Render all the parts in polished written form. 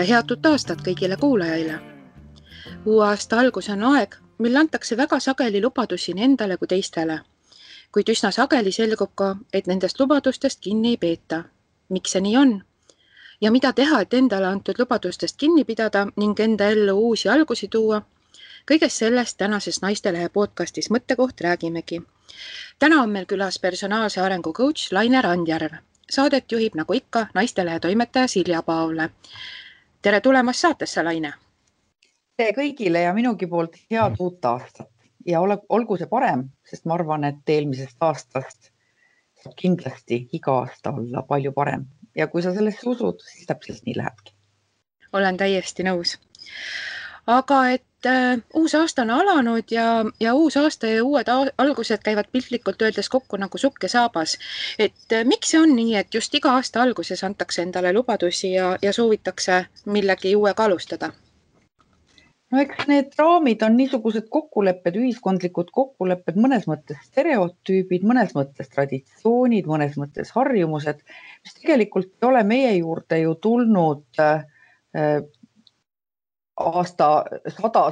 ja head uut aastat kõigile kuulajaile. Uue aasta algus on aeg, mil antakse väga sageli lubadusi nii endale kui teistele. Kuid üsna sageli selgub ka, et nendest lubadustest kinni ei peeta. Miks see nii on? Ja mida teha, et endale antud lubadustest kinni pidada ning enda ellu uusi algusi tuua? Kõigest sellest tänases Naistelehe podcastis Mõttekoht räägimegi. Täna on meil külas personaalse arengu coach Laine Randjärv. Saadet juhib nagu ikka Naistelehe toimetaja Silja Paavle. Tere tulemast saatesse, Laine! Tere kõigile ja minugi poolt head uut aastat. Ja olgu see parem, sest ma arvan, et eelmisest aastast saab kindlasti iga aasta olla palju parem. Ja kui sa sellesse usud, siis täpselt nii lähebki. Olen täiesti nõus. Aga et uus aasta on alanud ja uus aasta ja uued algused käivad piltlikult öeldes kokku nagu sukk ja saabas. Et miks see on nii, et just iga aasta alguses antakse endale lubadusi ja soovitakse millegi uuega alustada? No eks need raamid on niisugused kokkulepped, ühiskondlikud kokkulepped, mõnes mõttes stereotüübid, mõnes mõttes traditsioonid, mõnes mõttes harjumused, mis tegelikult ei ole meie juurde ju tulnud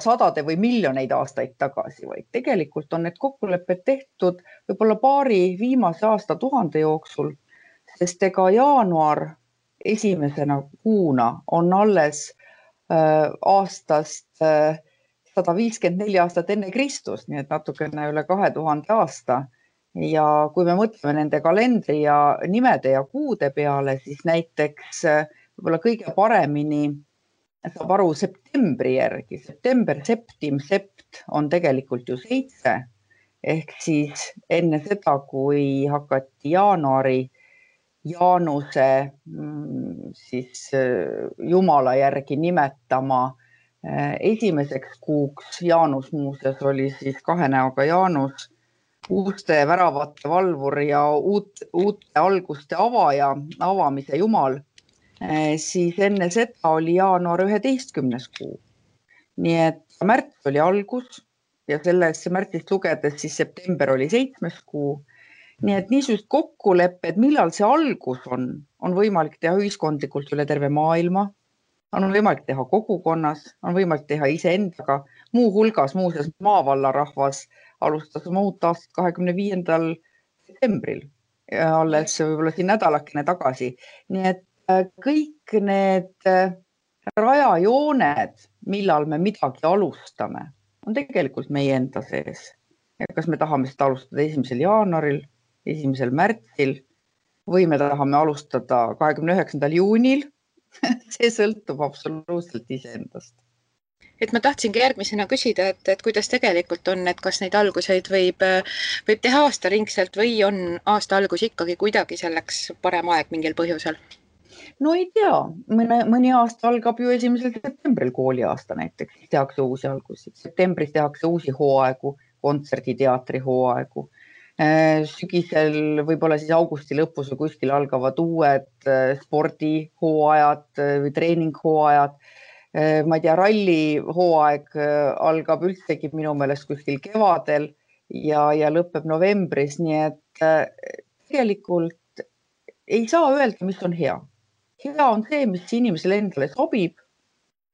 sadade või miljoneid aastaid tagasi, vaid tegelikult on need kokkulepped tehtud võib-olla paari viimase aastatuhande jooksul, sest ega jaanuar esimesena kuuna on alles aastast 154 aastat enne Kristus, nii et natukene üle 2000 aasta. Ja kui me mõtleme nende kalendri ja nimede ja kuude peale, siis näiteks võib-olla kõige paremini saab aru septembri järgi. September, septim, sept on tegelikult ju 7. Ehk siis enne seda, kui hakati jaanuari Jaanuse siis Jumala järgi nimetama esimeseks kuuks. Jaanus muuseas oli siis 2 näoga Jaanus, uuste väravate valvur ja uute alguste avaja, avamise Jumal. Siis enne seda oli jaanuar 11. kuu. Nii et märts oli algus ja sellest märtsist lugedes siis september oli 7. kuu. Nii et niisugust kokkulepped, millal see algus on võimalik teha ühiskondlikult üle terve maailma, on võimalik teha kogukonnas, on võimalik teha iseendaga. Muu hulgas muuseas maavallarahvas alustas oma uut aastat 25. septembril ja alles võib-olla siin nädalakene tagasi. Nii et kõik need rajajooned, millal me midagi alustame, on tegelikult meie enda sees. Ja kas me tahame seda alustada 1. jaanuaril, 1. märtsil või me tahame alustada 29. juunil, see sõltub absoluutselt iseendast. Et ma tahtsingi järgmisena küsida, et kuidas tegelikult on, et kas neid alguseid võib teha aastaringselt või on aasta algus ikkagi kuidagi selleks parem aeg mingil põhjusel? No ei tea, mõni aasta algab ju 1. septembril kooliaasta näiteks, tehakse uusi algusi. Septembris tehakse uusi hooaegu, kontserdi, teatri hooaegu. Sügisel võib-olla siis augusti lõpus või kuskil algavad uued spordihooajad või treeninghooajad. Ma ei tea, rallihooaeg algab üldsegi minu meelest kuskil kevadel ja lõpeb novembris, nii et tegelikult ei saa öelda, mis on hea. Hea on see, mis inimesele endale sobib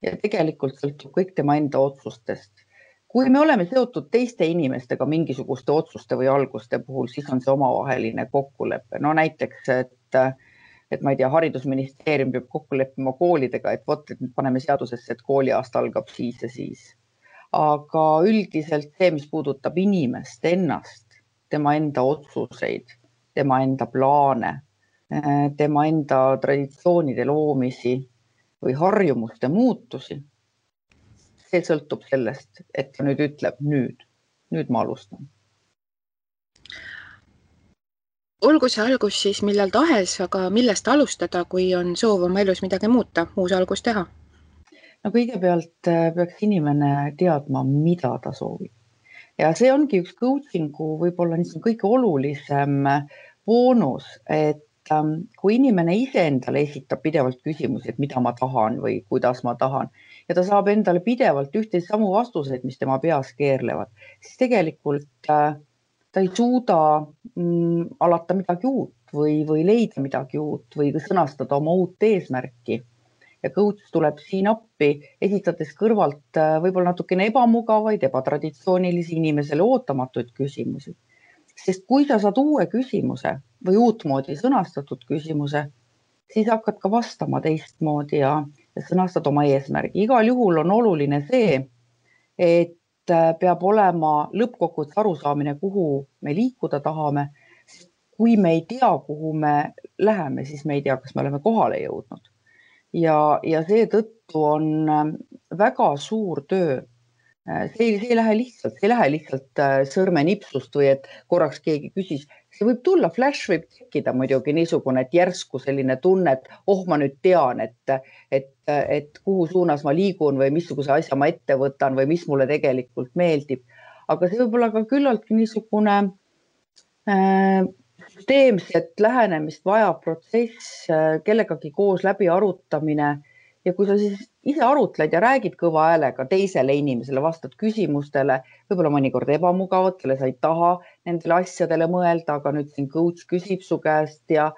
ja tegelikult sõltub kõik tema enda otsustest. Kui me oleme seotud teiste inimestega mingisuguste otsuste või alguste puhul, siis on see omavaheline kokkulepe. No näiteks, et ma ei tea, haridusministeerium peab kokku leppima koolidega, et nüüd paneme seadusesse, et kooliaasta algab siis ja siis. Aga üldiselt see, mis puudutab inimest ennast, tema enda otsuseid, tema enda plaane, tema enda traditsioonide loomisi või harjumuste muutusi, see sõltub sellest, et ta nüüd ütleb nüüd ma alustan. Olgu see algus siis millal tahes, aga millest alustada, kui on soov oma elus midagi muuta, uus algus teha? No kõigepealt peaks inimene teadma, mida ta soovib. Ja see ongi üks coachingu võib-olla kõige olulisem boonus, et kui inimene iseendale esitab pidevalt küsimusi, et mida ma tahan või kuidas ma tahan, ja ta saab endale pidevalt ühte samu vastuseid, mis tema peas keerlevad, siis tegelikult ta ei suuda alata midagi uut või leida midagi uut või sõnastada oma uut eesmärki. ja coach tuleb siin appi, esitades kõrvalt võib-olla natukene ebamugavaid, ebatraditsioonilisi inimesele ootamatuid küsimusi. Sest kui sa saad uue küsimuse või uutmoodi sõnastatud küsimuse, siis hakkad ka vastama teistmoodi ja sõnastad oma eesmärgi. Igal juhul on oluline see, et peab olema lõppkokkuvõttes arusaamine, kuhu me liikuda tahame. Kui me ei tea, kuhu me läheme, siis me ei tea, kas me oleme kohale jõudnud. Ja seetõttu on väga suur töö. See ei lähe lihtsalt sõrmenipsust või et korraks keegi küsis. See võib tulla, flash võib tekkida muidugi niisugune, et järsku selline tunne, et ma nüüd tean, et kuhu suunas ma liigun või missuguse asja ma ette võtan või mis mulle tegelikult meeldib. Aga see võib olla ka küllaltki niisugune süsteemset lähenemist vajav protsess, kellegagi koos läbi arutamine. Ja kui sa siis ise arutled ja räägid kõva häälega teisele inimesele, vastad küsimustele, võib-olla mõnikord ebamugavatele, sa ei taha nendele asjadele mõelda, aga nüüd siin coach küsib su käest ja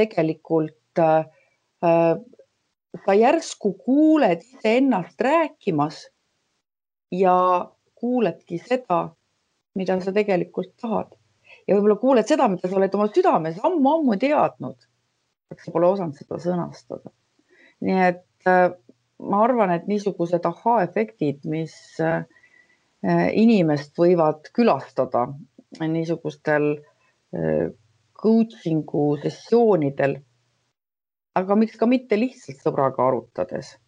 tegelikult sa järsku kuuled iseennast rääkimas ja kuuledki seda, mida sa tegelikult tahad. Ja võib-olla kuuled seda, mida sa oled oma südames ammu teadnud, aga sa pole osanud seda sõnastada. Nii et ma arvan, et niisugused aha-efektid, mis inimest võivad külastada niisugustel coachingu sessioonidel, aga miks ka mitte lihtsalt sõbraga arutades,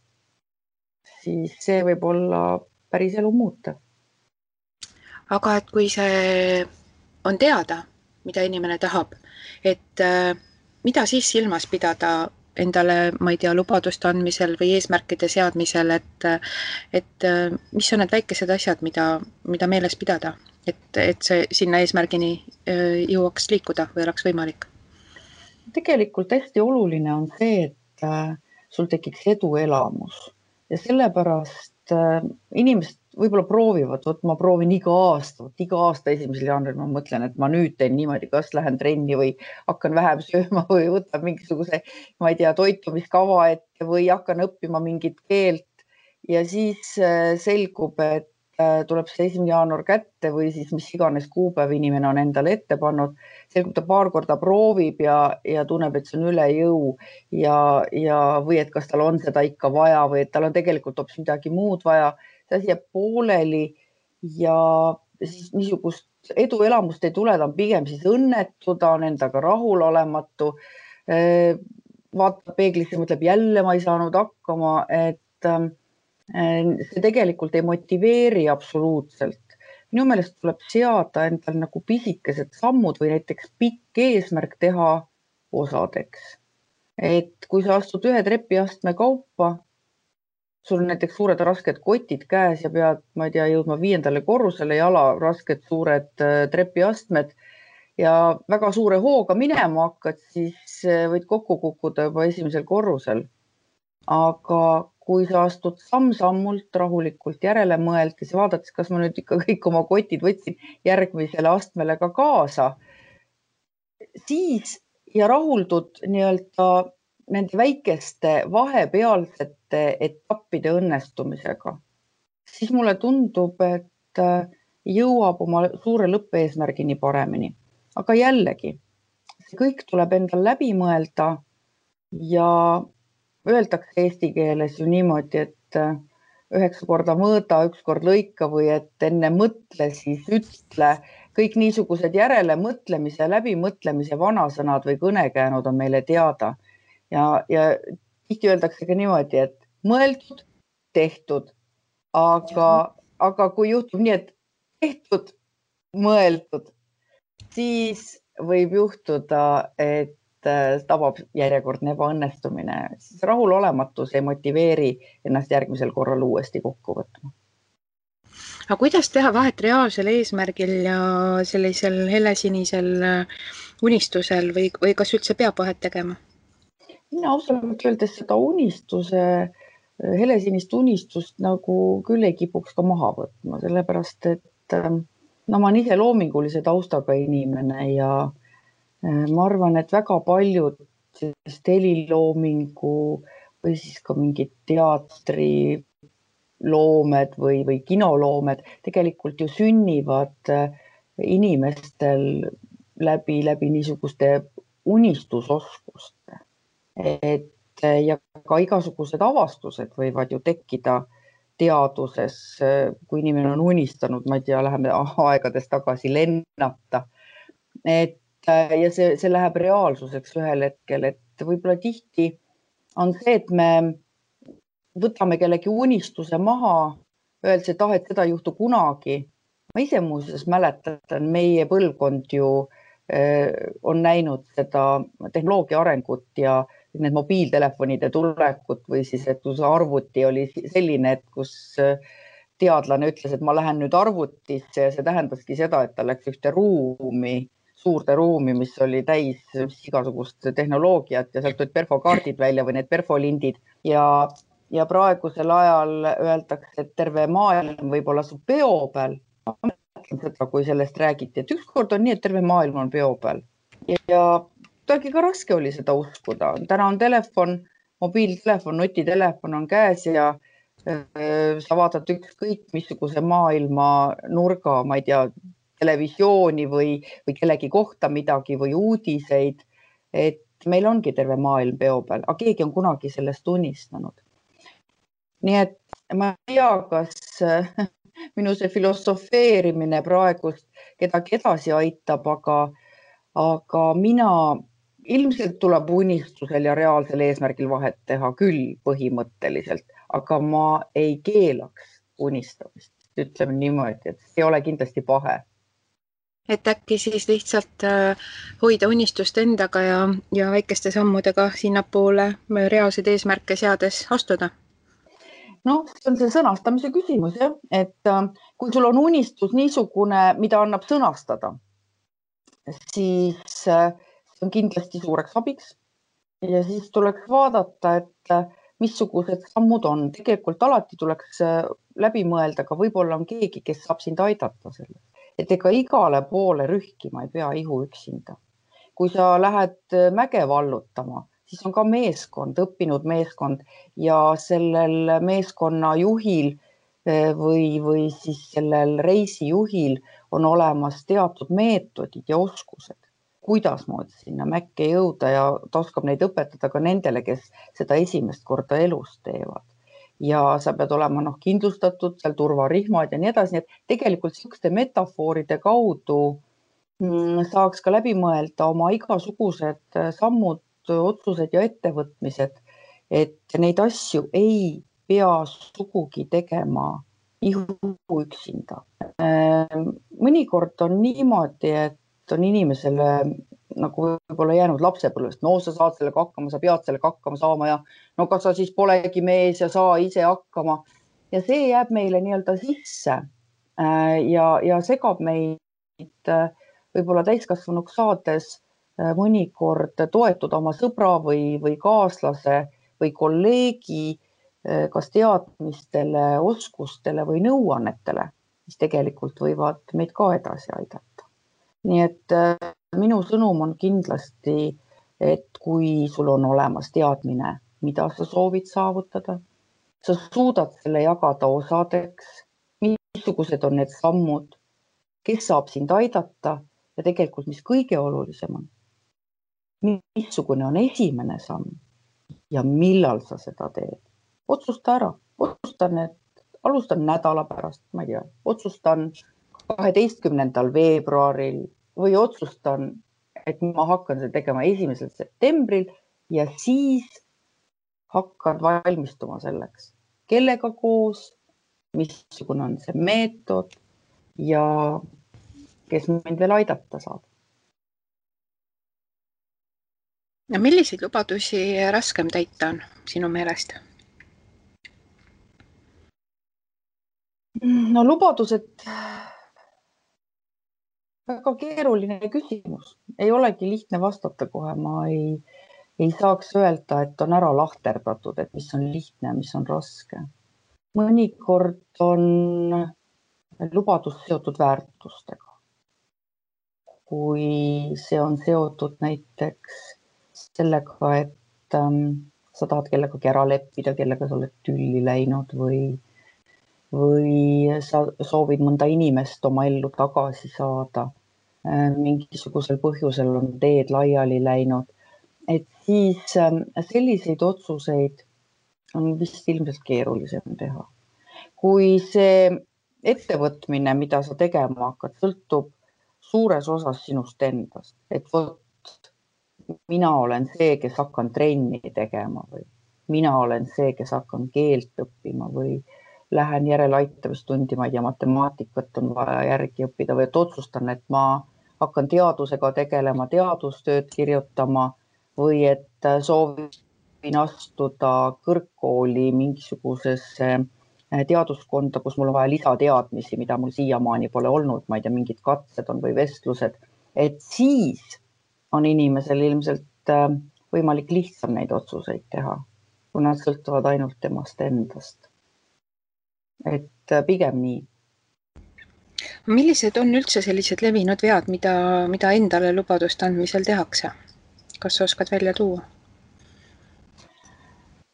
siis see võib olla päris elu muuta. Aga et kui see on teada, mida inimene tahab, et mida siis silmas pidada endale, ma ei tea, lubaduste andmisel või eesmärkide seadmisel, et mis on need väikesed asjad, mida meeles pidada, et see sinna eesmärgini jõuaks liikuda või oleks võimalik? Tegelikult hästi oluline on see, et sul tekiks eduelamus ja sellepärast inimesed võib-olla proovivad, ma proovin iga aasta 1. jaanuaril ma mõtlen, et ma nüüd teen niimoodi, kas lähen trenni või hakkan vähem sööma või võtan mingisuguse, ma ei tea, toitumiskava ette või hakkan õppima mingit keelt ja siis selgub, et tuleb see 1. jaanuar kätte või siis mis iganes kuupäev inimene on endale ette pannud, selgub ta paar korda proovib ja tunneb, et see on üle jõu või et kas tal on seda ikka vaja või et tal on tegelikult hoopis midagi muud vaja. See asi jääb pooleli ja siis niisugust eduelamust ei tule, ta on pigem siis õnnetu, ta on endaga rahulolematu, vaatab peeglisse, mõtleb jälle ma ei saanud hakkama, et see tegelikult ei motiveeri absoluutselt. Minu meelest tuleb seada endal nagu pisikesed sammud või näiteks pikk eesmärk teha osadeks. Et kui sa astud ühe trepiastme kaupa, sul on näiteks suured rasked kotid käes ja pead, ma ei tea, jõudma 5. korrusele, jala rasked suured trepiastmed ja väga suure hooga minema hakkad, siis võid kokku kukkuda juba 1. korrusel. Aga kui sa astud samm-sammult rahulikult järele mõeldes ja vaadates, kas ma nüüd ikka kõik oma kotid võtsin järgmisele astmele ka kaasa, siis ja rahuldud nii-öelda nende väikeste vahepealsete etappide õnnestumisega, siis mulle tundub, et jõuab oma suure lõppeesmärgini paremini. Aga jällegi, see kõik tuleb endal läbi mõelda ja öeldakse eesti keeles ju niimoodi, et 9 korda mõõda, 1 kord lõika või et enne mõtle, siis ütle. Kõik niisugused järele mõtlemise, läbimõtlemise vanasõnad või kõnekäänud on meile teada. Ja tihti öeldakse ka niimoodi, et mõeldud, tehtud, aga kui juhtub nii, et tehtud, mõeldud, siis võib juhtuda, et tabab järjekordne ebaõnnestumine. Siis rahulolematus ei motiveeri ennast järgmisel korral uuesti kokku võtma. Aga kuidas teha vahet reaalsel eesmärgil ja sellisel helesinisel unistusel või kas üldse peab vahet tegema? Mina ausalt öeldes seda helesinist unistust nagu küll ei kipuks ka maha võtma, sellepärast et ma olen ise loomingulise taustaga inimene ja ma arvan, et väga paljud heliloomingu või siis ka mingid teatriloomed või kinoloomed tegelikult ju sünnivad inimestel läbi niisuguste unistusoskuste. Ja ka igasugused avastused võivad ju tekkida teaduses, kui inimene on unistanud, ma ei tea, läheme aegades tagasi lennata. Ja see läheb reaalsuseks ühel hetkel, et võib-olla tihti on see, et me võtame kellegi unistuse maha, öeldes, et et seda ei juhtu kunagi. Ma ise muuseas mäletan, meie põlvkond ju on näinud seda tehnoloogia arengut ja need mobiiltelefonide tulekut või siis, et kus arvuti oli selline, et kus teadlane ütles, et ma lähen nüüd arvutisse ja see tähendaski seda, et ta läks ühte ruumi, suurde ruumi, mis oli täis igasugust tehnoloogiat ja sealt tulid perfokaardid välja või need perfolindid ja praegusel ajal öeldakse, et terve maailm võib olla su peo peal. Ma mõtlen seda, kui sellest räägiti, et ükskord on nii, et terve maailm on peo peal ja kuidagi ka raske oli seda uskuda. Täna on telefon, mobiiltelefon, nutitelefon on käes ja sa vaatad ükskõik missuguse maailma nurga, ma ei tea, televisiooni või kellegi kohta midagi või uudiseid. Et meil ongi terve maailm peo peal, aga keegi on kunagi sellest unistanud. Nii et ma ei tea, kas minu see filosofeerimine praegust kedagi edasi aitab, aga mina ilmselt tuleb unistusel ja reaalsel eesmärgil vahet teha küll põhimõtteliselt, aga ma ei keelaks unistamist. Ütleme niimoodi, et see ei ole kindlasti pahe. Et äkki siis lihtsalt hoida unistust endaga ja väikeste sammudega sinnapoole reaalseid eesmärke seades astuda? No, see on see sõnastamise küsimus, jah, et kui sul on unistus niisugune, mida annab sõnastada, siis see on kindlasti suureks abiks ja siis tuleks vaadata, et missugused sammud on. Tegelikult alati tuleks läbi mõelda, aga võib-olla on keegi, kes saab sind aidata selles. Et ega igale poole rühkima ei pea ihu üksinda. Kui sa lähed mäge vallutama, siis on ka meeskond, õppinud meeskond ja sellel meeskonna juhil või siis sellel reisijuhil on olemas teatud meetodid ja oskused, kuidas moodi sinna mäkke jõuda ja ta oskab neid õpetada ka nendele, kes seda esimest korda elus teevad. Ja sa pead olema kindlustatud, seal turvarihmad ja nii edasi, nii et tegelikult sellised metafooride kaudu saaks ka läbi mõelda oma igasugused sammud, otsused ja ettevõtmised, et neid asju ei pea sugugi tegema ihu üksinda. Mõnikord on niimoodi, et on inimesele nagu võib-olla jäänud lapsepõlvest. No sa saad sellega hakkama, sa pead sellega hakkama saama ja no kas sa siis polegi mees ja saa ise hakkama. Ja see jääb meile nii-öelda sisse ja segab meid võib-olla täiskasvanuks saades mõnikord toetuda oma sõbra või kaaslase või kolleegi kas teadmistele, oskustele või nõuannetele, mis tegelikult võivad meid ka edasi aidata. Nii et minu sõnum on kindlasti, et kui sul on olemas teadmine, mida sa soovid saavutada, sa suudad selle jagada osadeks, missugused on need sammud, kes saab sind aidata ja tegelikult, mis kõige olulisem on, missugune on esimene samm ja millal sa seda teed. Otsusta ära, alustan nädala pärast, ma ei tea, otsustan 12. veebruaril või otsustan, et ma hakkan seda tegema 1. septembril ja siis hakkad valmistuma selleks, kellega koos, missugune on see meetod ja kes mind veel aidata saab. Ja milliseid lubadusi raskem täita on sinu meelest? No lubadused, väga keeruline küsimus. Ei olegi lihtne vastata kohe. Ma ei saaks öelda, et on ära lahterdatud, et mis on lihtne, mis on raske. Mõnikord on lubadus seotud väärtustega. Kui see on seotud näiteks sellega, et sa tahad kellegagi ära leppida, kellega sa oled tülli läinud või sa soovid mõnda inimest oma ellu tagasi saada. Mingisugusel põhjusel on teed laiali läinud. Et siis selliseid otsuseid on vist ilmselt keerulisem teha. Kui see ettevõtmine, mida sa tegema hakkad, sõltub suures osas sinust endast, et vot mina olen see, kes hakkan trenni tegema või mina olen see, kes hakkan keelt õppima või lähen järeleaitamistundi, ma ei tea, matemaatikat on vaja järgi õppida või et otsustan, et ma hakkan teadusega tegelema, teadustööd kirjutama või et soovin astuda kõrgkooli mingisugusesse teaduskonda, kus mul on vaja lisateadmisi, mida mul siiamaani pole olnud, ma ei tea, mingid katsed on või vestlused, et siis on inimesel ilmselt võimalik lihtsam neid otsuseid teha, kui nad sõltuvad ainult temast endast. Et pigem nii. Millised on üldse sellised levinud vead, mida endale lubaduste andmisel tehakse? Kas sa oskad välja tuua?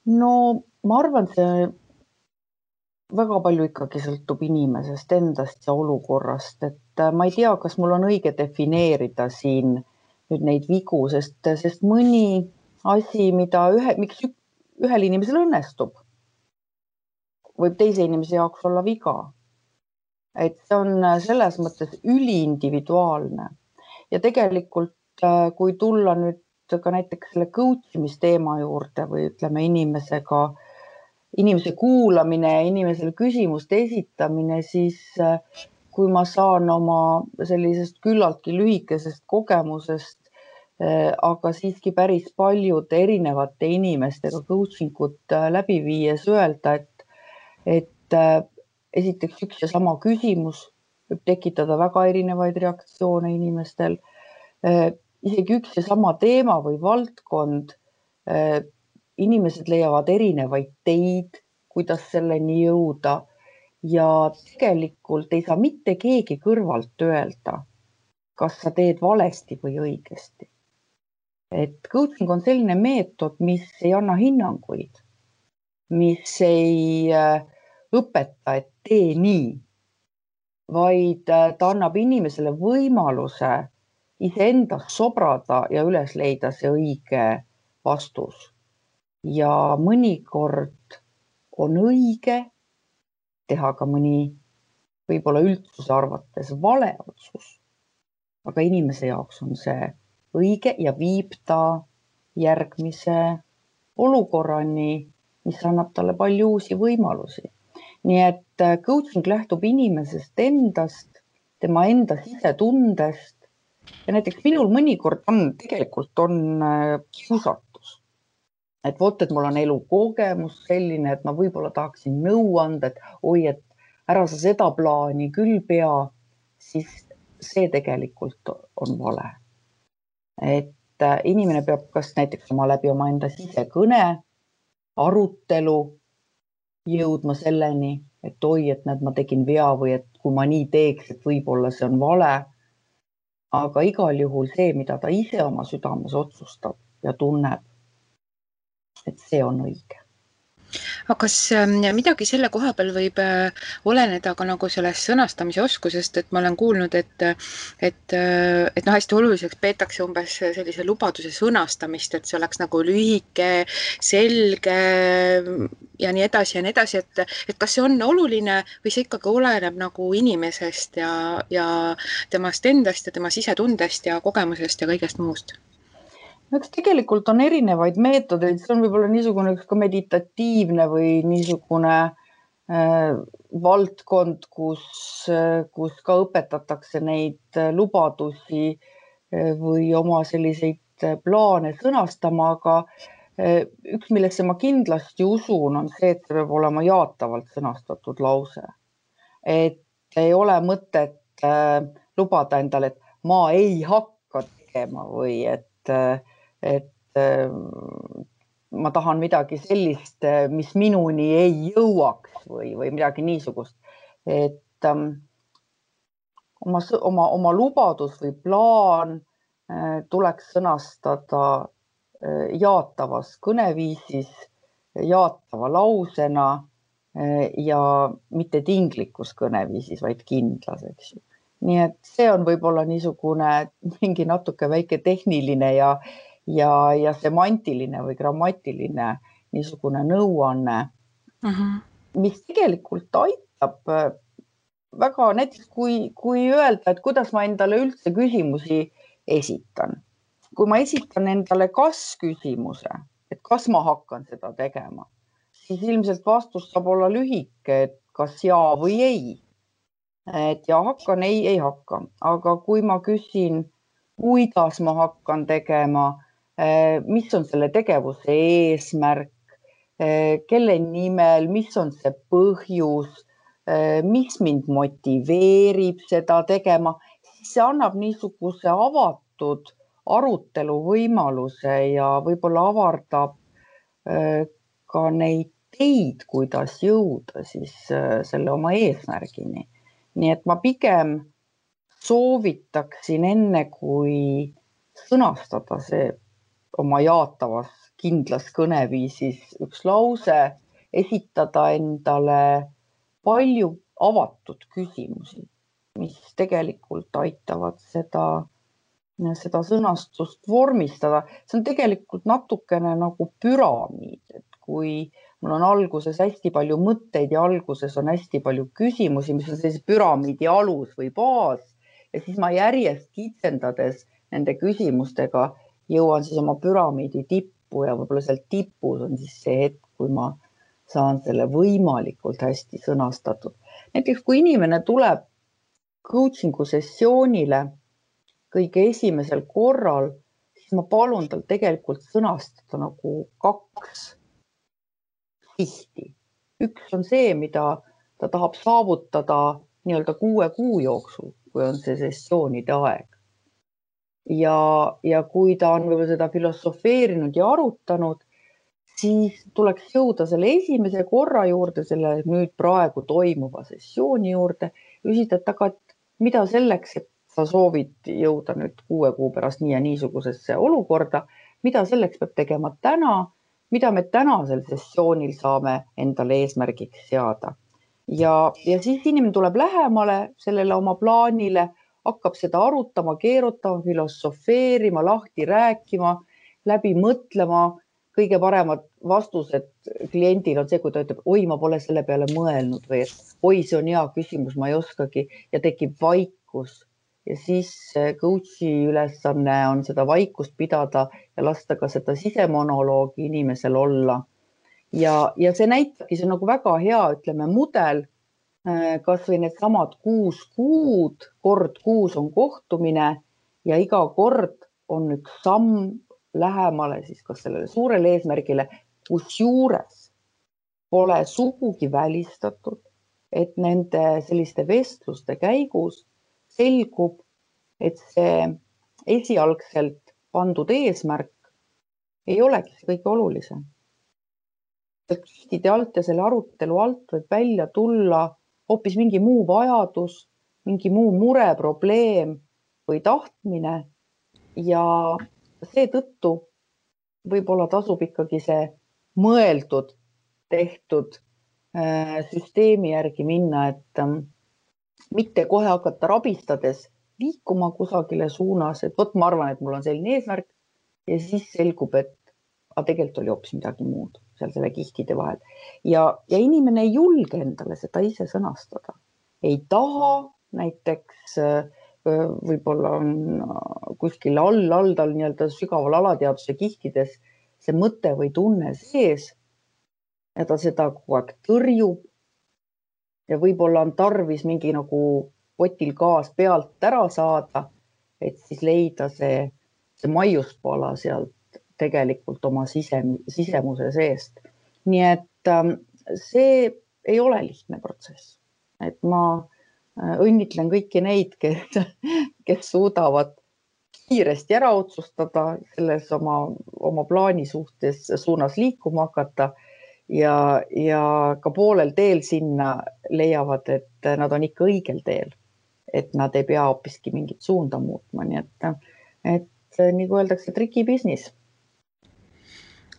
No ma arvan, see väga palju ikkagi sõltub inimesest endast ja olukorrast, et ma ei tea, kas mul on õige defineerida siin nüüd neid vigu, sest mõni asi, miks ühel inimesel õnnestub, võib teise inimese jaoks olla viga. Et see on selles mõttes üliindividuaalne ja tegelikult, kui tulla nüüd ka näiteks selle coachimisteema juurde või ütleme inimese kuulamine ja inimesele küsimuste esitamine, siis kui ma saan oma sellisest küllaltki lühikesest kogemusest, aga siiski päris paljude erinevate inimestega coachingut läbi viies öelda, et esiteks üks ja sama küsimus võib tekitada väga erinevaid reaktsioone inimestel. Isegi üks ja sama teema või valdkond, inimesed leiavad erinevaid teid, kuidas selleni jõuda ja tegelikult ei saa mitte keegi kõrvalt öelda, kas sa teed valesti või õigesti. Et coaching on selline meetod, mis ei anna hinnanguid, mis ei õpeta, et tee nii, vaid ta annab inimesele võimaluse iseendas sobrada ja üles leida see õige vastus. Ja mõnikord on õige teha ka mõni võib-olla üldsuse arvates vale otsus, aga inimese jaoks on see õige ja viib ta järgmise olukorrani, mis annab talle palju uusi võimalusi. Nii et coaching lähtub inimesest endast, tema enda sisetundest ja näiteks minul mõnikord tegelikult on kiusatus. Et vot, et mul on elukogemus selline, et ma võib-olla tahaksin nõu anda, et oi, et ära sa seda plaani küll pea, siis see tegelikult on vale. Et inimene peab kas näiteks läbi oma enda sisekõne, arutelu jõudma selleni, et oi, et näed, ma tegin vea või et kui ma nii teeks, et võib-olla see on vale. Aga igal juhul see, mida ta ise oma südames otsustab ja tunneb, et see on õige. Aga kas midagi selle koha peal võib oleneda ka nagu sellest sõnastamise oskusest, et ma olen kuulnud, et hästi oluliseks peetakse umbes sellise lubaduse sõnastamist, et see oleks nagu lühike, selge ja nii edasi, et kas see on oluline või see ikkagi oleneb nagu inimesest ja temast endast ja tema sisetundest ja kogemusest ja kõigest muust? Eks tegelikult on erinevaid meetodeid, see on võib-olla niisugune üks ka meditatiivne või niisugune valdkond, kus ka õpetatakse neid lubadusi või oma selliseid plaane sõnastama, aga üks, millesse ma kindlasti usun, on see, et see peab olema jaatavalt sõnastatud lause. Et ei ole mõtet lubada endale, et ma ei hakka tegema või et ma tahan midagi sellist, mis minuni ei jõuaks või midagi niisugust. Et oma lubadus või plaan tuleks sõnastada jaatavas kõneviisis, jaatava lausena ja mitte tinglikus kõneviisis, vaid kindlas, eks ju. Nii et see on võib-olla niisugune mingi natuke väike tehniline ja semantiline või grammatiline niisugune nõuanne, mis tegelikult aitab väga, näiteks kui öelda, et kuidas ma endale üldse küsimusi esitan. Kui ma esitan endale kas-küsimuse, et kas ma hakkan seda tegema, siis ilmselt vastus saab olla lühike, et kas jaa või ei. Et ja hakkan, ei hakka. Aga kui ma küsin, kuidas ma hakkan tegema, mis on selle tegevuse eesmärk, kelle nimel, mis on see põhjus, mis mind motiveerib seda tegema, siis see annab niisuguse avatud arutelu võimaluse ja võib-olla avardab ka neid teid, kuidas jõuda siis selle oma eesmärgini. Nii et ma pigem soovitaksin enne, kui sõnastada see oma jaatavas kindlas kõneviisis üks lause, esitada endale palju avatud küsimusi, mis tegelikult aitavad seda sõnastust vormistada. See on tegelikult natukene nagu püramiid, et kui mul on alguses hästi palju mõtteid ja alguses on hästi palju küsimusi, mis on sellise püramiidi alus või baas ja siis ma järjest kitsendades nende küsimustega jõuan siis oma püramiidi tippu ja võib-olla seal tipus on siis see hetk, kui ma saan selle võimalikult hästi sõnastatud. Näiteks kui inimene tuleb coachingu sessioonile kõige esimesel korral, siis ma palun tal tegelikult sõnastada nagu 2 sihti. Üks on see, mida ta tahab saavutada nii-öelda 6 kuu jooksul, kui on see sessioonide aeg. Ja kui ta on võib-olla seda filosofeerinud ja arutanud, siis tuleks jõuda selle esimese korra juurde, selle nüüd praegu toimuva sessiooni juurde, küsida, et mida selleks, et sa soovid jõuda nüüd 6 kuu pärast nii ja niisugusesse olukorda, mida selleks peab tegema täna, mida me tänasel sessioonil saame endale eesmärgiks seada. Ja siis inimene tuleb lähemale sellele oma plaanile, hakkab seda arutama, keerutama, filosofeerima, lahti rääkima, läbi mõtlema. Kõige paremad vastused kliendil on see, kui ta ütleb, oi, ma pole selle peale mõelnud või et oi, see on hea küsimus, ma ei oskagi ja tekib vaikus. Ja siis coachi ülesanne on seda vaikust pidada ja lasta ka seda sisemonoloogi inimesel olla. Ja see näitabki, see on nagu väga hea, ütleme, mudel, kas või need samad 6 kuud, kord kuus on kohtumine ja iga kord on üks samm lähemale siis kas sellele suurele eesmärgile, kus juures pole sugugi välistatud, et nende selliste vestluste käigus selgub, et see esialgselt pandud eesmärk ei olegi see kõige olulisem. Kihtide alt ja selle arutelu alt võib välja tulla hoopis mingi muu vajadus, mingi muu mure, probleem või tahtmine ja seetõttu võib-olla tasub ikkagi see mõeldud, tehtud süsteemi järgi minna, et mitte kohe hakata rabistades liikuma kusagile suunas, et võt ma arvan, et mul on selline eesmärk ja siis selgub, et tegelikult oli hoopis midagi muud seal selle kihtide vahel. Ja inimene ei julge endale seda ise sõnastada. Ei taha, näiteks võib-olla on kuskil all tal nii-öelda sügaval alateaduse kihtides see mõte või tunne sees ja ta seda kogu aeg tõrjub ja võib-olla on tarvis mingi nagu potil gaas pealt ära saada, et siis leida see maiuspala sealt tegelikult oma sisemuse seest. Nii et see ei ole lihtne protsess. Et ma õnnitlen kõiki neid, kes suudavad kiiresti ära otsustada selles oma plaani suunas liikuma hakata ja ka poolel teel sinna leiavad, et nad on ikka õigel teel, et nad ei pea hoopiski mingit suunda muutma. Nii et nagu öeldakse, triki business.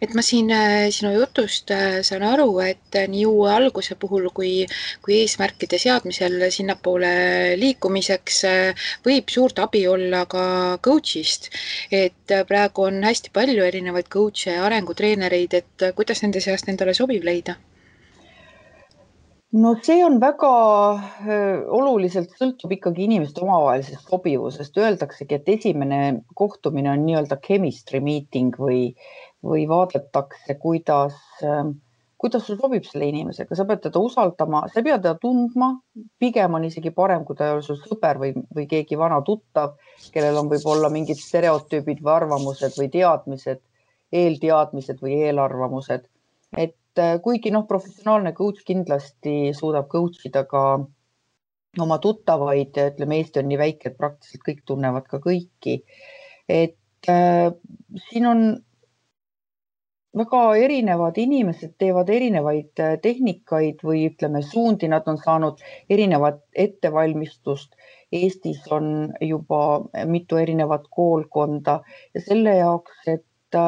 et ma siin sinu jutust saan aru, et nii uue alguse puhul kui eesmärkide seadmisel sinnapoole liikumiseks võib suurt abi olla ka coach'ist. Et praegu on hästi palju erinevaid coach'e ja arengutreenereid, et kuidas nende seast endale sobiv leida? No see on väga oluliselt sõltub ikkagi inimeste omavahelisest sobivusest. Öeldaksegi, et esimene kohtumine on nii-öelda chemistry meeting või vaadatakse, kuidas sul sobib selle inimesega. Sa pead teda usaldama, sa ei pea teda tundma. Pigem on isegi parem, kui ta ei ole sul sõber või keegi vana tuttav, kellel on võib-olla mingid stereotüübid või arvamused või teadmised, eelteadmised või eelarvamused. Et kuigi professionaalne coach kindlasti suudab coach ida ka oma tuttavaid, ütleme, Eesti on nii väike, et praktiliselt kõik tunnevad ka kõiki. Et siin on väga erinevad inimesed, teevad erinevaid tehnikaid või ütleme suundi, nad on saanud erinevat ettevalmistust. Eestis on juba mitu erinevat koolkonda ja selle jaoks, et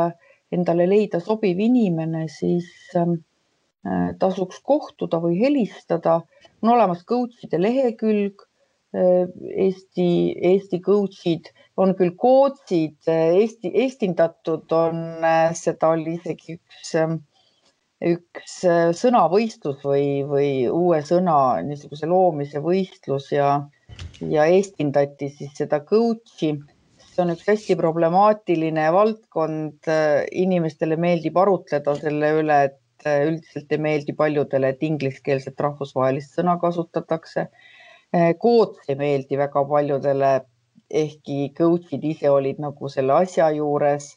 endale leida sobiv inimene, siis tasuks kohtuda või helistada. On olemas coach'ide lehekülg, Eesti coach'id, on küll coach'id, eestindatud on, seda oli isegi üks sõnavõistlus või uue sõna niisuguse loomise võistlus ja eestindati siis seda coach'i. See on üks hästi problemaatiline valdkond. Inimestele meeldib arutleda selle üle, et üldiselt ei meeldi paljudele, et ingliskeelset rahvusvahelist sõna kasutatakse. Coach ei meeldi väga paljudele, ehkki coach'id ise olid nagu selle asja juures,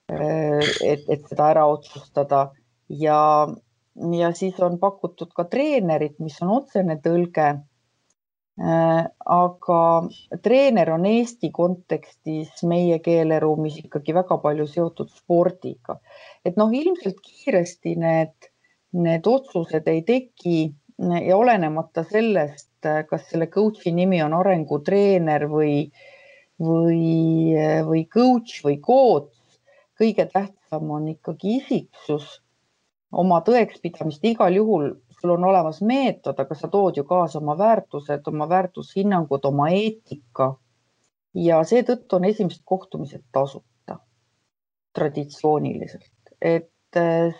et seda ära otsustada. Ja siis on pakutud ka treenerit, mis on otsene tõlge. Aga treener on Eesti kontekstis meie keeleruumis ikkagi väga palju seotud spordiga. Et ilmselt kiiresti need otsused ei teki ja olenemata sellest, kas selle coach'i nimi on arengutreener või coach või coach, kõige tähtsam on ikkagi isiksus, oma tõekspidamist. Igal juhul sul on olemas meetod, aga sa tood ju kaasa oma väärtused, oma väärtushinnangud, oma eetika. Ja seetõttu on esimesed kohtumised tasuta traditsiooniliselt. Et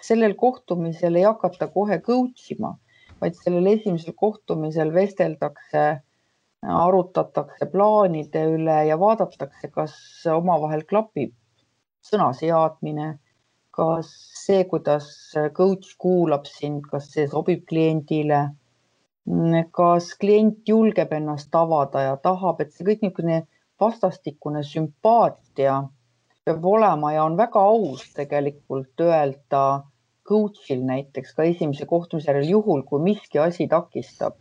sellel kohtumisel ei hakata kohe coach ima, vaid sellel esimesel kohtumisel vesteldakse, arutatakse plaanide üle ja vaadatakse, kas omavahel klapib sõnaseadmine, kas see, kuidas coach kuulab sind, kas see sobib kliendile, kas klient julgeb ennast avada ja tahab, et see kõik niisugune vastastikune sümpaatia peab olema ja on väga aus tegelikult öelda coach'il näiteks ka esimese kohtumise järel, juhul kui miski asi takistab,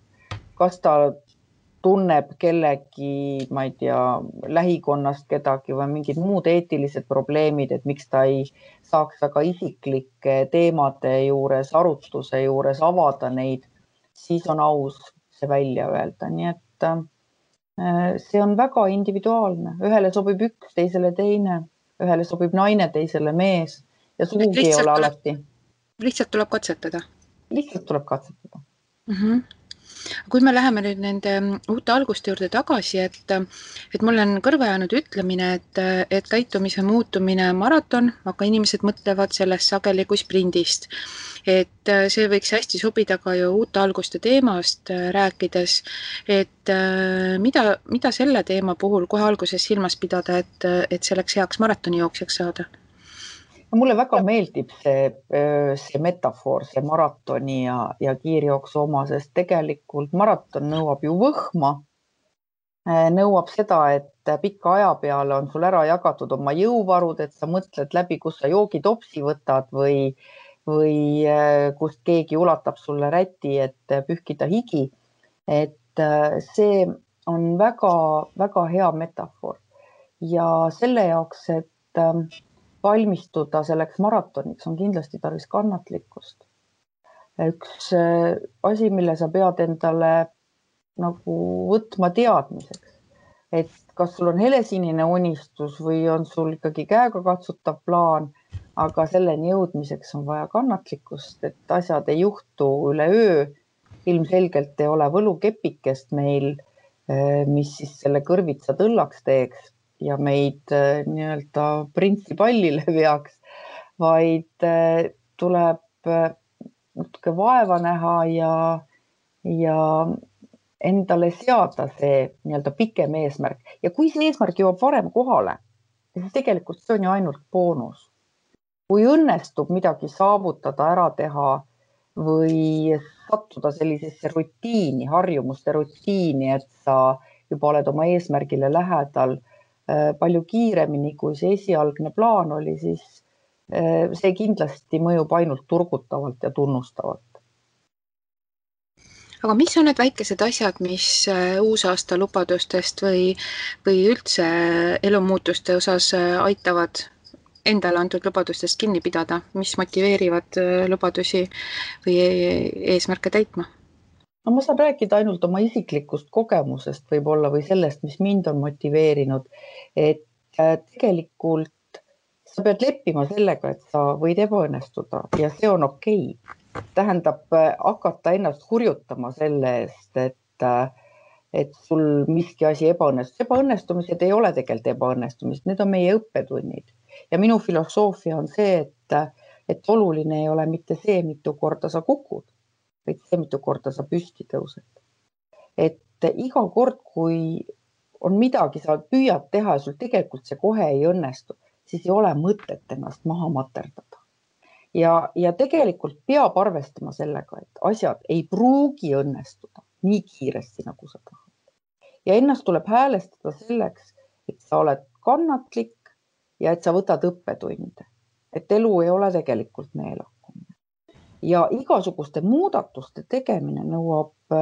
kas ta tunneb kellegi, ma ei tea, lähikonnast kedagi või mingid muud eetilised probleemid, et miks ta ei saaks väga isiklike teemade juures, arutluse juures avada neid, siis on aus see välja öelda. Nii et see on väga individuaalne. Ühele sobib üks, teisele teine, ühele sobib naine, teisele mees ja sugugi ei ole alati. Lihtsalt tuleb katsetada. Lihtsalt tuleb katsetada. Kui me läheme nüüd nende uute alguste juurde tagasi, et mul on kõrva jäänud ütlemine, et käitumise muutumine on maraton, aga inimesed mõtlevad sellest sageli kui sprindist. Et see võiks hästi sobida ka ju uute alguste teemast rääkides, et mida selle teema puhul kohe alguses silmas pidada, et selleks heaks maratonijooksjaks saada? Mulle väga meeldib see metafoor, see maratoni ja kiirjooksu oma, sest tegelikult maraton nõuab ju võhma, nõuab seda, et pika aja peale on sul ära jagatud oma jõuvarud, et sa mõtled läbi, kus sa joogitopsi võtad või kust keegi ulatab sulle räti, et pühkida higi. Et see on väga, väga hea metafoor ja selle jaoks, et valmistuda selleks maratoniks on kindlasti tarvis kannatlikkust. Üks asi, mille sa pead endale nagu võtma teadmiseks, et kas sul on helesinine unistus või on sul ikkagi käega katsutav plaan, aga selleni jõudmiseks on vaja kannatlikkust, et asjad ei juhtu üleöö. Ilmselgelt ei ole võlukepikest meil, mis siis selle kõrvitsa tõllaks teeks ja meid nii-öelda printsipallile veaks, vaid tuleb natuke vaeva näha ja endale seada see nii-öelda pikem eesmärk. Ja kui see eesmärk jõuab varem kohale, siis tegelikult see on ju ainult boonus. Kui õnnestub midagi saavutada, ära teha või sattuda sellisesse rutiini, harjumuste rutiini, et sa juba oled oma eesmärgile lähedal palju kiiremini, kui see esialgne plaan oli, siis see kindlasti mõjub ainult turgutavalt ja tunnustavalt. Aga mis on need väikesed asjad, mis uusaasta lubadustest või üldse elumuutuste osas aitavad endale antud lubadustest kinni pidada, mis motiveerivad lubadusi või eesmärke täitma? No, ma saan rääkida ainult oma isiklikust kogemusest võib-olla või sellest, mis mind on motiveerinud, et tegelikult sa pead leppima sellega, et sa võid ebaõnnestuda ja see on okei. Tähendab hakata ennast hurjutama selle eest, et sul miski asi ebaõnnestus. Ebaõnnestumised ei ole tegelikult ebaõnnestumised, need on meie õppetunnid. Ja minu filosoofia on see, et oluline ei ole mitte see, mitu korda sa kukud, vaid see, mitu korda sa püsti tõused. Et iga kord, kui on midagi, sa püüad teha ja sul tegelikult see kohe ei õnnestu, siis ei ole mõtet ennast maha materdada. Ja tegelikult peab arvestama sellega, et asjad ei pruugi õnnestuda nii kiiresti, nagu sa tahad. Ja ennast tuleb häälestada selleks, et sa oled kannatlik ja et sa võtad õppetunde. Et elu ei ole tegelikult meelakkumine. Ja igasuguste muudatuste tegemine nõuab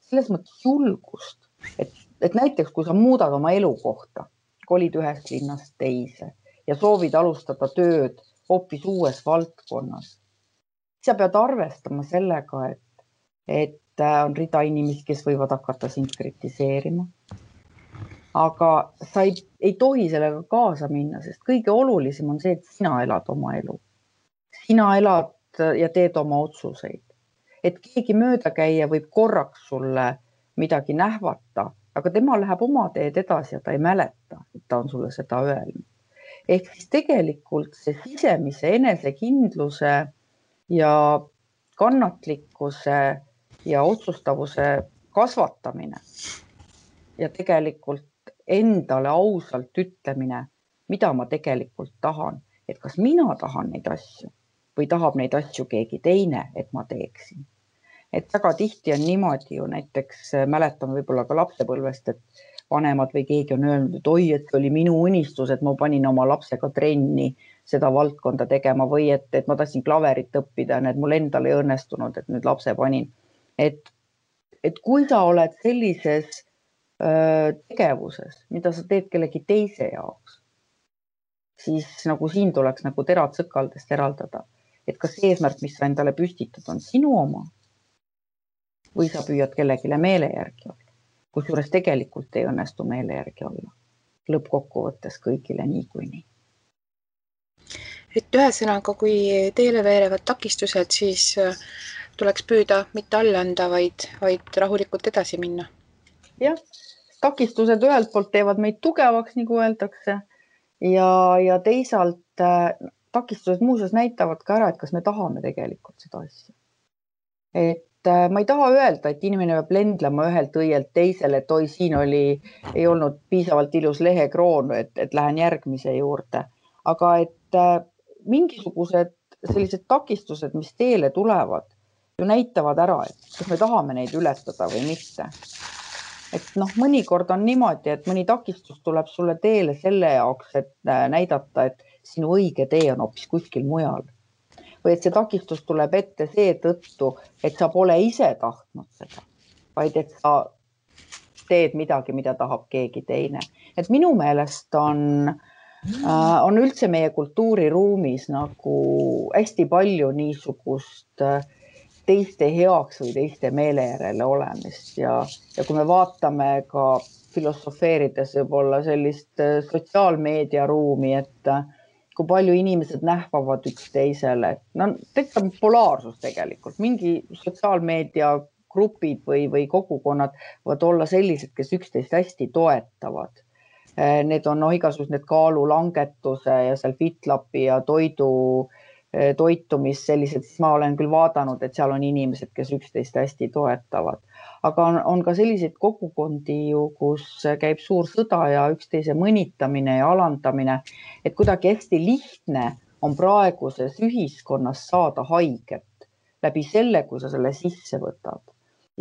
selles mõttes julgust. Et näiteks, kui sa muudad oma elukohta, kolid ühest linnast teise ja soovid alustada tööd hoopis uues valdkonnas, sa pead arvestama sellega, et on rida inimesi, kes võivad hakata sind kritiseerima. Aga sa ei tohi sellega kaasa minna, sest kõige olulisem on see, et sina elad oma elu. Sina elad ja teed oma otsuseid. Et keegi möödakäija võib korraks sulle midagi nähvata, aga tema läheb oma teed edasi ja ta ei mäleta, et ta on sulle seda öelnud. Ehk siis tegelikult see sisemise enesekindluse ja kannatlikkuse ja otsustavuse kasvatamine ja tegelikult endale ausalt ütlemine, mida ma tegelikult tahan, et kas mina tahan neid asju või tahab neid asju keegi teine, et ma teeksin. Et väga tihti on niimoodi ju, näiteks mäletan võib-olla ka lapsepõlvest, et vanemad või keegi on öelnud, et oi, et oli minu unistus, et ma panin oma lapsega trenni seda valdkonda tegema või et ma tahtsin klaverit õppida ja need mul endal ei õnnestunud, et nüüd lapse panin. Et kui sa oled sellises tegevuses, mida sa teed kellegi teise jaoks, siis nagu siin tuleks nagu terad sõkaldest eraldada, et kas eesmärk, mis sa endale püstitad, on sinu oma või sa püüad kellegile meele järgi olla, kusjuures tegelikult ei õnnestu meele järgi olla. Lõppkokkuvõttes kõigile niikuinii. Et ühesõnaga, kui teele veerevad takistused, siis tuleks püüda mitte alla anda, vaid rahulikult edasi minna. Jah, takistused ühelt poolt teevad meid tugevaks, nagu öeldakse, ja teisalt takistused muuseas näitavad ka ära, et kas me tahame tegelikult seda asja. Et ma ei taha öelda, et inimene peab lendlema ühelt õielt teisele, et oi, siin ei olnud piisavalt ilus lehekroon, et lähen järgmise juurde. Aga et mingisugused sellised takistused, mis teele tulevad, ju näitavad ära, et kas me tahame neid ületada või mitte. Et mõnikord on niimoodi, et mõni takistus tuleb sulle teele selle jaoks, et näidata, et sinu õige tee on hoopis kuskil mujal. Või et see takistus tuleb ette seetõttu, et sa pole ise tahtnud seda, vaid et sa teed midagi, mida tahab keegi teine. Et minu meelest on üldse meie kultuuriruumis nagu hästi palju niisugust teiste heaks või teiste meele järele olemist ja kui me vaatame ka filosofeerides võib-olla sellist sotsiaalmeedia ruumi, et kui palju inimesed nähvavad üksteisele. No tekitab polaarsus tegelikult, mingi sotsiaalmeedia grupid või kogukonnad võivad olla sellised, kes üksteist hästi toetavad. Need on igasugused need kaalulangetuse ja seal FitLapi ja toitumis sellised, siis ma olen küll vaadanud, et seal on inimesed, kes üksteist hästi toetavad. Aga on ka selliseid kogukondi ju, kus käib suur sõda ja üksteise mõnitamine ja alandamine, et kuidagi hästi lihtne on praeguses ühiskonnas saada haiget läbi selle, kui sa selle sisse võtad.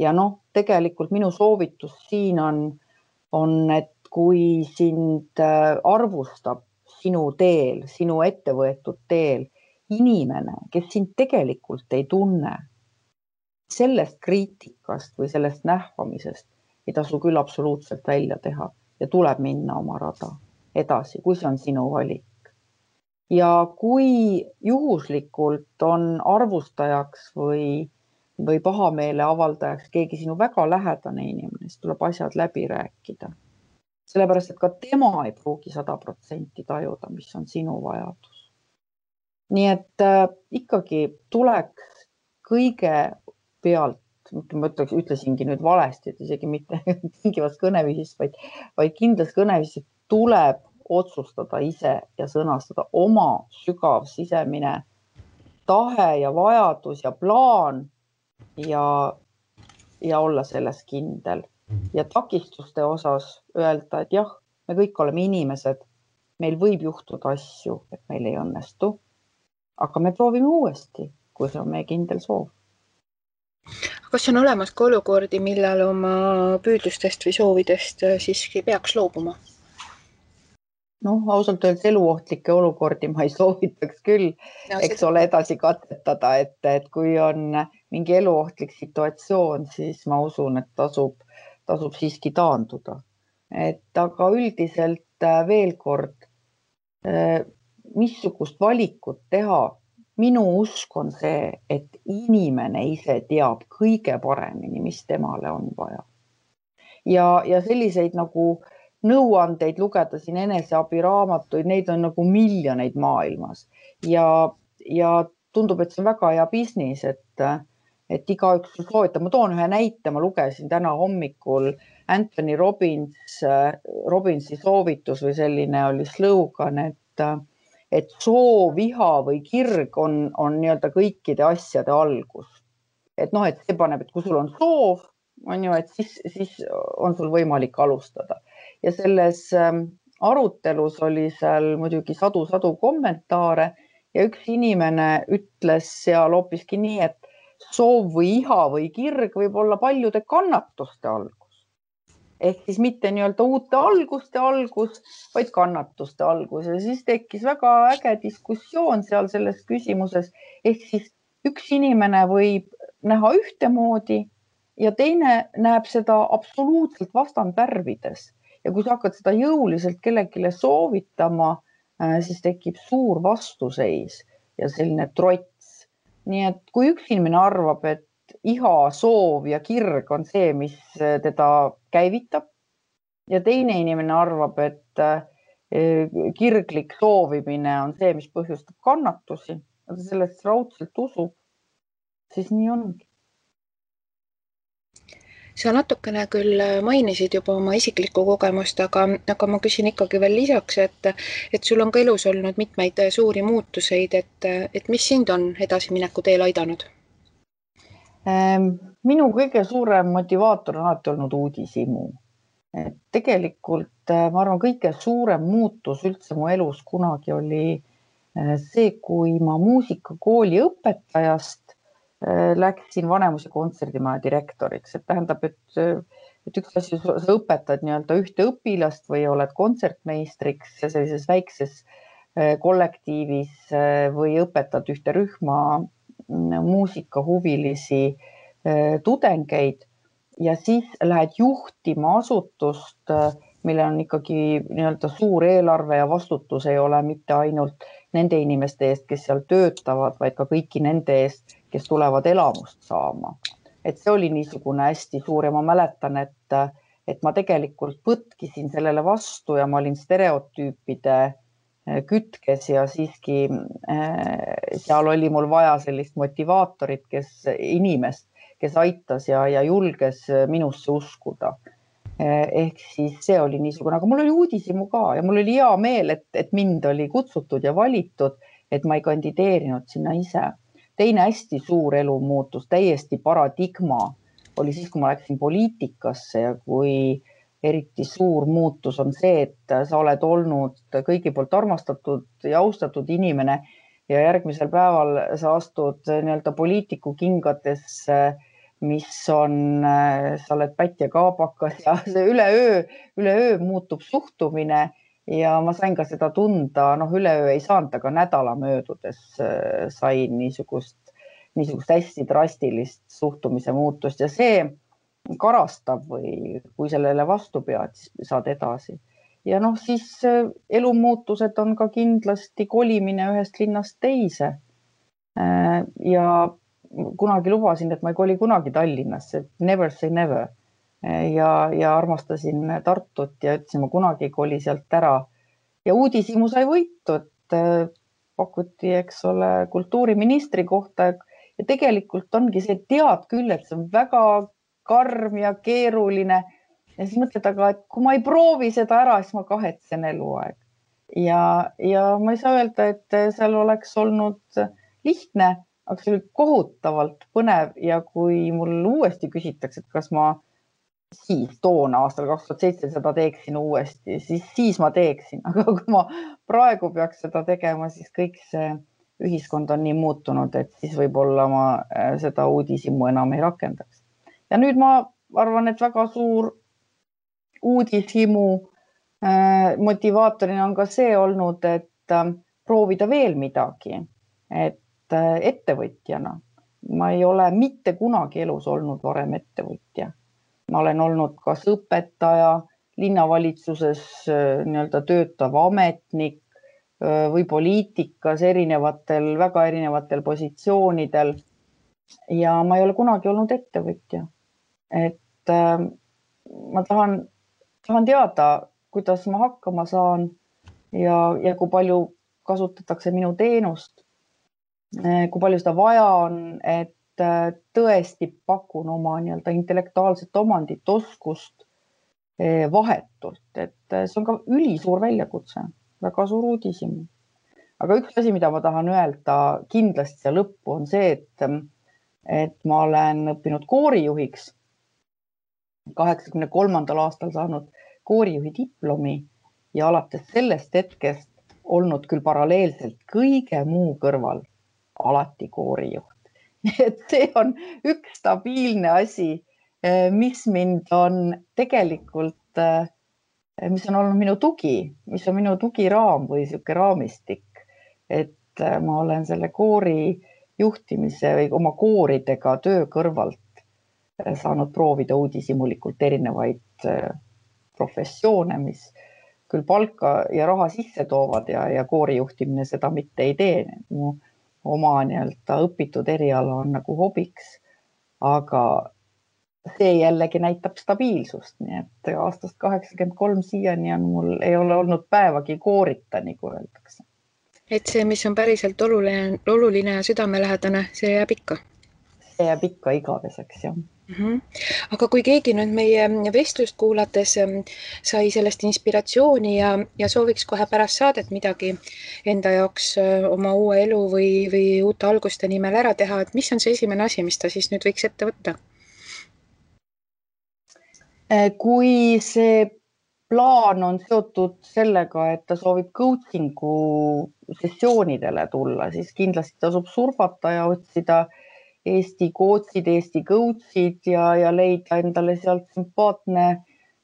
Ja tegelikult minu soovitus siin on, et kui sind arvustab sinu teel, sinu ettevõetud teel inimene, kes sind tegelikult ei tunne, sellest kriitikast või sellest nähvamisest ei tasu küll absoluutselt välja teha ja tuleb minna oma rada edasi, kui see on sinu valik. Ja kui juhuslikult on arvustajaks või pahameele avaldajaks keegi sinu väga lähedane inimene, siis tuleb asjad läbi rääkida. Sellepärast, et ka tema ei pruugi 100% tajuda, mis on sinu vajadus. Nii et ikkagi tuleks kõige pealt, ma ütlesingi nüüd valesti, et isegi mitte tingivas kõneviisis, vaid kindlas kõneviisis tuleb otsustada ise ja sõnastada oma sügav sisemine tahe ja vajadus ja plaan ja olla selles kindel. Ja takistuste osas öelda, et jah, me kõik oleme inimesed, meil võib juhtuda asju, et meil ei õnnestu, aga me proovime uuesti, kui see on meie kindel soov. Kas on olemas ka olukordi, millal oma püüdlustest või soovidest siiski peaks loobuma? Ausalt öeldes eluohtlikke olukordi ma ei soovitaks küll, eks ole, edasi katsetada, et kui on mingi eluohtlik situatsioon, siis ma usun, et tasub siiski taanduda. Aga üldiselt veel kord, missugust valikut teha, minu usk on see, et inimene ise teab kõige paremini, mis temale on vaja. Ja selliseid nagu nõuandeid lugeda siin eneseabiraamatuid, neid on nagu miljoneid maailmas ja tundub, et see on väga hea business, et igaüks soovitab. Ma toon ühe näite, ma lugesin täna hommikul Anthony Robbinsi soovitus või selline oli slogan, et soov, viha või kirg on nii-öelda kõikide asjade algus. Et see paneb, et kui sul on soov, on ju, et siis on sul võimalik alustada. Ja selles arutelus oli seal muidugi sadu kommentaare ja üks inimene ütles seal hoopiski nii, et soov või iha või kirg võib olla paljude kannatuste algus. Ehk siis mitte nii-öelda uute alguste algus, vaid kannatuste algus. Ja siis tekkis väga äge diskussioon seal selles küsimuses. Ehk siis üks inimene võib näha ühtemoodi ja teine näeb seda absoluutselt vastandvärvides. Ja kui sa hakkad seda jõuliselt kellelegi soovitama, siis tekib suur vastuseis ja selline trots. Nii et kui üks inimene arvab, et iha, soov ja kirg on see, mis teda käivitab ja teine inimene arvab, et kirglik soovimine on see, mis põhjustab kannatusi, aga sellest raudselt usub, siis nii ongi. Sa natukene küll mainisid juba oma isiklikku kogemust, aga ma küsin ikkagi veel lisaks, et sul on ka elus olnud mitmeid suuri muutuseid, et mis sind on edasimineku teel aidanud? Minu kõige suurem motivaator on alati olnud uudishimu. Tegelikult ma arvan, kõige suurem muutus üldse mu elus kunagi oli see, kui ma muusikakooli õpetajast läksin Vanemuise kontserdimaja direktoriks. Et tähendab, et üks asi, sa õpetad nii-öelda ühte õpilast või oled kontsertmeistriks sellises väikses kollektiivis või õpetad ühte rühma muusikahuvilisi tudengeid ja siis lähed juhtima asutust, millel on ikkagi nii-öelda suur eelarve ja vastutus ei ole mitte ainult nende inimeste eest, kes seal töötavad, vaid ka kõiki nende eest, kes tulevad elamust saama. Et see oli niisugune hästi suur ja ma mäletan, et ma tegelikult põtkisin sellele vastu ja ma olin stereotüüpide kütkes ja siiski seal oli mul vaja sellist motivaatorit, inimest, kes aitas ja julges minusse uskuda. Ehk siis see oli niisugune, aga mul oli uudishimu ka ja mul oli hea meel, et mind oli kutsutud ja valitud, et ma ei kandideerinud sinna ise. Teine hästi suur elumuutus, täiesti paradigma oli siis, kui ma läksin poliitikasse ja kui eriti suur muutus on see, et sa oled olnud kõigi poolt armastatud ja austatud inimene ja järgmisel päeval sa astud nii-öelda poliitiku kingadesse, mis on, sa oled pätt ja kaabakas ja see üleöö muutub suhtumine ja ma sain ka seda tunda, üleöö ei saanud, aga nädala möödudes sain niisugust hästi drastilist suhtumise muutust ja see karastab või kui sellele vastu pead, siis saad edasi. Ja siis elumuutused on ka kindlasti kolimine ühest linnast teise. Ja kunagi lubasin, et ma ei koli kunagi Tallinnasse, never say never. Ja armastasin Tartut ja ütlesin, ma kunagi ei koli sealt ära. Ja uudishimu sai võitu, et pakuti, eks ole, kultuuriministri kohta ja tegelikult ongi see, tead küll, et see on väga karm ja keeruline ja siis mõtled, aga et kui ma ei proovi seda ära, siis ma kahetsen eluaeg. Ja ma ei saa öelda, et seal oleks olnud lihtne, aga see oli kohutavalt põnev ja kui mul uuesti küsitakse, et kas ma siis toona aastal 2007 seda teeksin uuesti, siis ma teeksin, aga kui ma praegu peaks seda tegema, siis kõik see ühiskond on nii muutunud, et siis võib-olla ma seda uudishimu enam ei rakendaks. Ja nüüd ma arvan, et väga suur uudishimu motivaatorina on ka see olnud, et proovida veel midagi, et ettevõtjana. Ma ei ole mitte kunagi elus olnud varem ettevõtja. Ma olen olnud kas õpetaja, linnavalitsuses nii-öelda töötav ametnik või poliitikas väga erinevatel positsioonidel. Ja ma ei ole kunagi olnud ettevõtja. Et ma tahan teada, kuidas ma hakkama saan ja kui palju kasutatakse minu teenust, kui palju seda vaja on, et tõesti pakun oma nii-öelda intellektuaalset omandit, oskust vahetult, et see on ka ülisuur väljakutse, väga suur uudishimu. Aga üks asi, mida ma tahan öelda kindlasti siia lõppu on see, et ma olen õppinud koorijuhiks 83. aastal saanud koorijuhi diplomi ja alates sellest hetkest olnud küll paralleelselt kõige muu kõrval alati koorijuht. Et see on üks stabiilne asi, mis mind on tegelikult, mis on olnud minu tugi, mis on minu tugiraam või sihuke raamistik, et ma olen selle koori juhtimise või oma kooridega töö kõrvalt saanud proovida uudishimulikult erinevaid professioone, mis küll palka ja raha sisse toovad ja koorijuhtimine seda mitte ei tee. Mu oma nii-öelda õpitud eriala on nagu hobiks, aga see jällegi näitab stabiilsust. Nii et aastast 83 siiani on mul ei ole olnud päevagi koorita, nagu öeldakse. Et see, mis on päriselt oluline ja südamelähedane, see jääb ikka. See jääb ikka igaveseks, jah. Aga kui keegi nüüd meie vestlust kuulates sai sellest inspiratsiooni ja sooviks kohe pärast saadet midagi enda jaoks oma uue elu või uute alguste nimel ära teha, et mis on see esimene asi, mis ta siis nüüd võiks ette võtta? Kui see plaan on seotud sellega, et ta soovib coachingu sessioonidele tulla, siis kindlasti tasub surfata ja otsida Eesti coach'id, Eesti coach'id ja leida endale sealt sümpaatne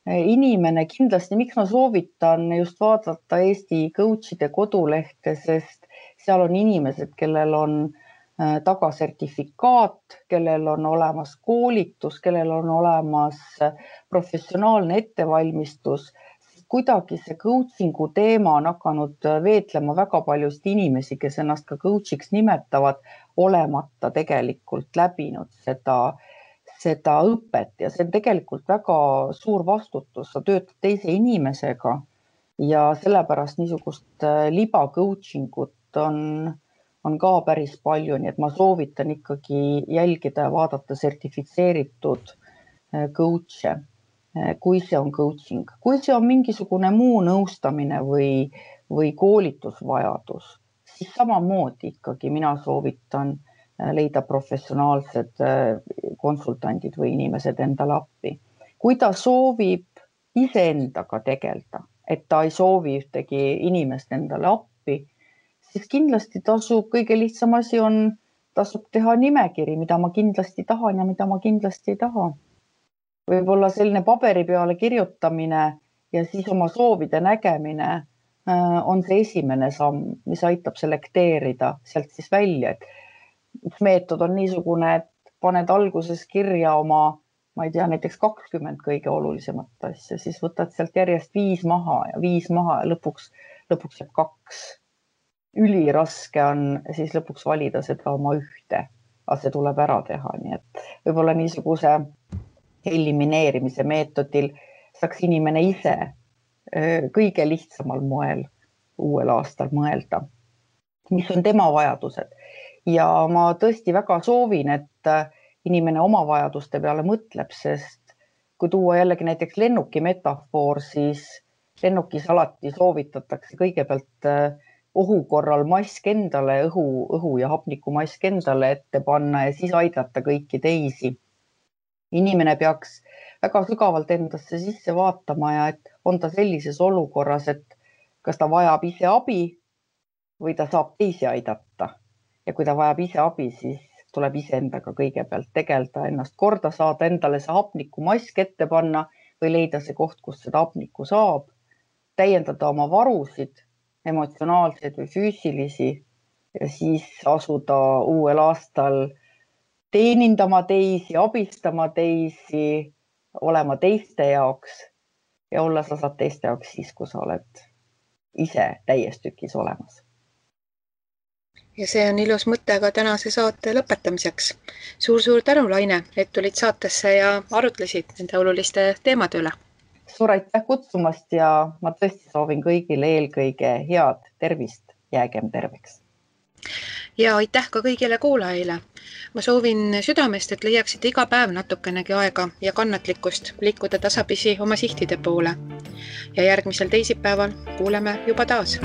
inimene. Kindlasti, miks ma soovitan just vaadata Eesti coach'ide kodulehte, sest seal on inimesed, kellel on tagasertifikaat, kellel on olemas koolitus, kellel on olemas professionaalne ettevalmistus. Kuidagi see coachingu teema on hakanud veetlema väga paljust inimesi, kes ennast ka coach'iks nimetavad, olemata tegelikult läbinud seda õpet ja see on tegelikult väga suur vastutus. Sa töötad teise inimesega ja sellepärast niisugust liba coachingut on ka päris palju, nii et ma soovitan ikkagi jälgida ja vaadata sertifitseeritud coach'e, kui see on coaching. Kui see on mingisugune muu nõustamine või koolitusvajadus, siis samamoodi ikkagi mina soovitan leida professionaalsed konsultandid või inimesed endale appi. Kui ta soovib iseendaga tegelda, et ta ei soovi ühtegi inimest endale appi, siis kindlasti tasub, kõige lihtsam asi on, tasub teha nimekiri, mida ma kindlasti tahan ja mida ma kindlasti ei taha. Võib-olla selline paberi peale kirjutamine ja siis oma soovide nägemine on see esimene samm, mis aitab selekteerida sealt siis välja, et üks meetod on niisugune, et paned alguses kirja oma, ma ei tea, näiteks 20 kõige olulisemat asja, siis võtad sealt järjest 5 maha ja lõpuks jääb 2. Üliraske on siis lõpuks valida seda oma ühte, aga see tuleb ära teha, nii et võib-olla niisuguse elimineerimise meetodil saaks inimene ise kõige lihtsamal moel uuel aastal mõelda, mis on tema vajadused. Ja ma tõesti väga soovin, et inimene oma vajaduste peale mõtleb, sest kui tuua jällegi näiteks lennuki metafoor, siis lennukis alati soovitatakse kõigepealt ohu korral mask endale, õhu ja hapnikumask endale ette panna ja siis aidata kõiki teisi. Inimene peaks väga sügavalt endasse sisse vaatama ja et on ta sellises olukorras, et kas ta vajab ise abi või ta saab teisi aidata. Ja kui ta vajab ise abi, siis tuleb iseendaga kõigepealt tegelda, ennast korda saada, endale see hapnikumask ette panna või leida see koht, kus seda hapnikku saab, täiendada oma varusid, emotsionaalseid või füüsilisi ja siis asuda uuel aastal teenindama teisi, abistama teisi, olema teiste jaoks ja olla sa saad teiste jaoks siis, kui sa oled ise täies tükis olemas. Ja see on ilus mõte ka tänase saate lõpetamiseks. Suur tänu, Laine, et tulid saatesse ja arutlesid nende oluliste teemade üle. Suur aitäh kutsumast ja ma tõesti soovin kõigile eelkõige head tervist, jäägem terveks. Ja aitäh ka kõigile kuulajaile. Ma soovin südamest, et leiaksite iga päev natukenegi aega ja kannatlikkust liikuda tasapisi oma sihtide poole. Ja järgmisel teisipäeval kuuleme juba taas.